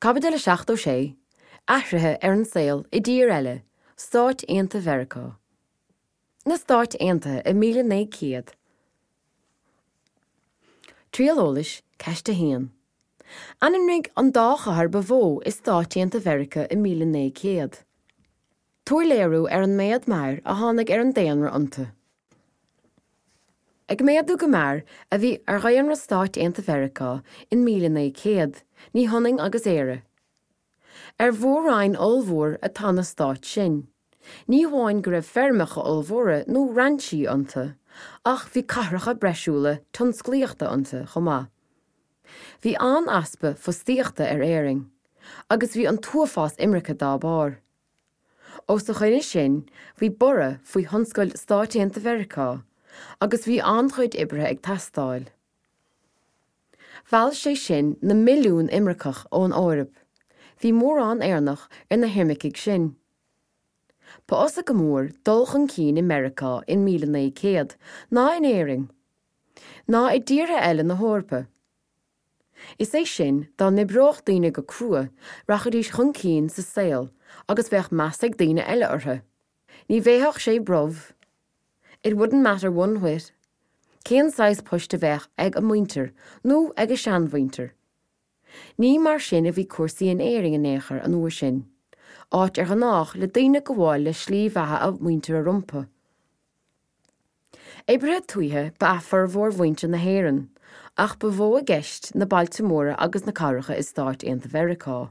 Caibidil 76, Athruithe ar an saol i dtír eile, Stáit Aontaithe Mheiriceá. Na Stáit Aontaithe i 1900. Triail eolais, Ceist 1. Ainmnigh an dá chathair ba mhó i Stáit Aontaithe Mheiriceá i 1900. Tabhair léiriú ar an méad mear a tháinig ar an daonra iontu. Ag méadú go mear a bhí ar dhaonra Stáit Aontaithe Mheiriceá in 1900, ní hionann agus Éire. Ar mhór-roinn ollmhór atá na stáit sin. Ní hamháin go raibh feirmeacha ollmhóra nó rainsí iontu, ach bhí cathracha breisiúla tionsclaíochta iontu chomh maith. Bhí an-easpa fostaíochta ar Éirinn, agus bhí an t-uafás imirce dá barr. Os a choinne sin, bhí borradh faoi thionscail Stáit Aontaithe Mheiriceá, agus bhí an-chuid oibrithe ag teastáil. Mheall sé sin na milliúin imirceach ón Eoraip. Bhí mórán Éireannach ar na himircigh sin. Ba fhusa go mór dul chun cinn i Meiriceá in 1900 ná in Éirinn, ná i dtíortha eile na hEorpa. Is é sin, dá n-oibreodh daoine go crua, rachaidís chun cinn sa saol agus bheadh meas ag daoine eile orthu. Ní bhéarfadh sé brobh, it wouldn't matter one whit, cén saghas poist a bheadh ag a muintir nó ag a seanmhuintir. Ní mar sin a bhí cúrsaí in Éirinn in aon chor an uair sin, áit ar ghnách le daoine gabháil le slí bheatha a muintire rompu. Oibrithe tuaithe ba ea formhór mhuintir na hÉireann, ach ba mhó i gceist na bailte móra agus na cathracha i Stáit Aontaithe Mheiriceá.